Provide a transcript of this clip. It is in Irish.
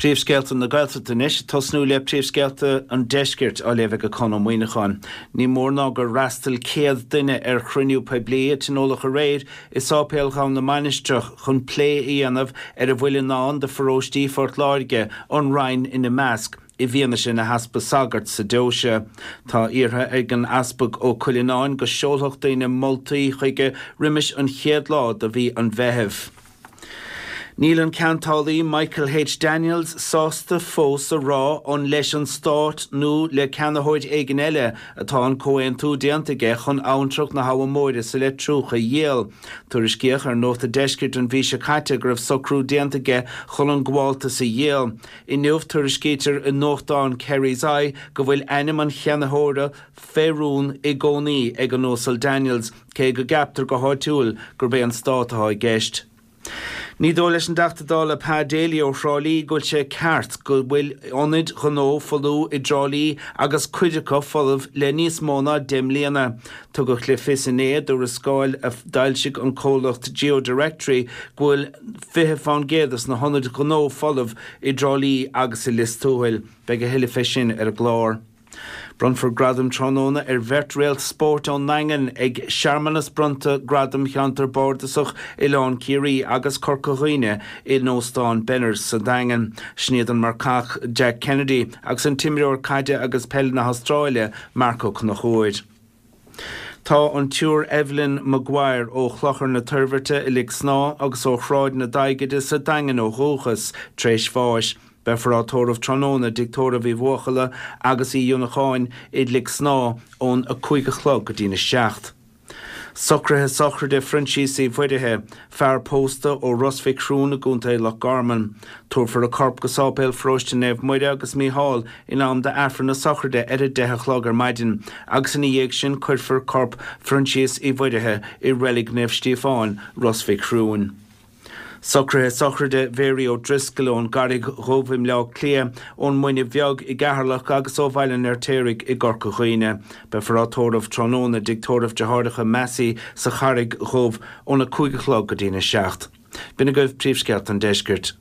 Príomhscéalta na Gaeltachta anois, ag tosnú le príomhscéalta an Deiscirt á léamh ag Conn Ó Muíneacháin. Ní mór ná gur fhreastail 100 duine ar chruinniú poiblí a tionóladh aréir i Sáipéal Dhomhan na Mainistreach chun plé a dhéanamh ar a bhfuil i ndán do pharóistí Phort Láirge, an Rinn ina measc, i bhfianaise na heaspa sagart sa deoise. Tá iarrtha ag an Easpag Ó Cuileanáin go seolfadh daoine moltaí chuige roimis an chéad lá de mhí an Mheithimh. Níl an ceantálaí Michael H. Daniels sásta fós a rá an leis an Stát nó le ceannaitheoir éigin eile atá an comhaontú déanta aige chun abhantrach na hAbha Móire sa Leitriúch a dhíol. Tuairiscíodh ar Nuacht an Deiscirt an mhí seo caite go raibh socrú déanta aige chun an gabháltas a dhíol. Inniu tuairiscítear i nuachtán Kerry's Eye go bhfuil ainm an cheannaitheora fé rún i gcónaí ag an Uasal Daniels, cé go gceaptar go háitiúil gurb é an Stát atá i gceist. Ní dóigh leis an dTeachta Dála Pa Daly ó Thrá Lí go bhfuil sé ceart go bhfuil ionaid ghnó folmha i dTrá Lí agus cuid acu folamh le níos mó ná 10 mbliana. Tugadh le fios inné i dtuarascáil a d'fhoilsigh an comhlacht GeoDirectory go bhfuil 20 fán gcéad des na hionaid ghnó folamh i dTrá Lí agus i Lios Tuathail. Beidh a thuilleadh fé sin ar an gclár. Bronnfar gradaim tráthnóna ar bheirt réalt spóirt ón nDaingean ag searmanas bronnta Gradam Cheantar Bardasach Oileán Ciarraí agus Corca Dhuibhne in Óstán Benners sa Daingean. Sin iad an marcach Jack Kennedy agus an t-imreoir caide agus peile na hAstráile Marc Ó Conchúir. Tá an tSiúr Evelyn Maguire ó Chlochar na Toirbhirte i Lic Snámha agus ó Shráid na Daighide sa Daingean ó dhúchas, tar éis bháis. Beifear á tórramh tráthnóna i dTigh Tórraimh Uí Bhuachalla agus Uí Fhionnacháin i Lic Snámha ón 5 a chlog go dtína 7. Socruithe sochraide Phroinsias Uí Mhuirithe, fear pósta ó Ros Mhic Thriúin i gContae Loch Garman. Tabharfar a corp go Sáipéal Pharóiste Naomh Muire agus Mícheál in am d'Aifreann na sochraide ar a 10 a chlog ar maidin agus ina dhiaidh sin cuirfear corp Phroinsias Uí Mhuirithe i Reilig Naomh Stíofáin, Ros Mhic Thriúin. Socruithe sochraide Mhary O'Driscoll ón gCarraig Dhubh i mBleá Cliath, ón Muine Bheag i gCeatharlach agus ó Bhaile an Fheirtéaraigh i gCorca Dhuibhne. Beifear á tórramh tráthnóna i dTigh Tórraimh Deartháireacha Massey sa Charraig Dhubh óna 5 a chlog go dtína 7. B'in agaibh príomhscéalta an deiscirt.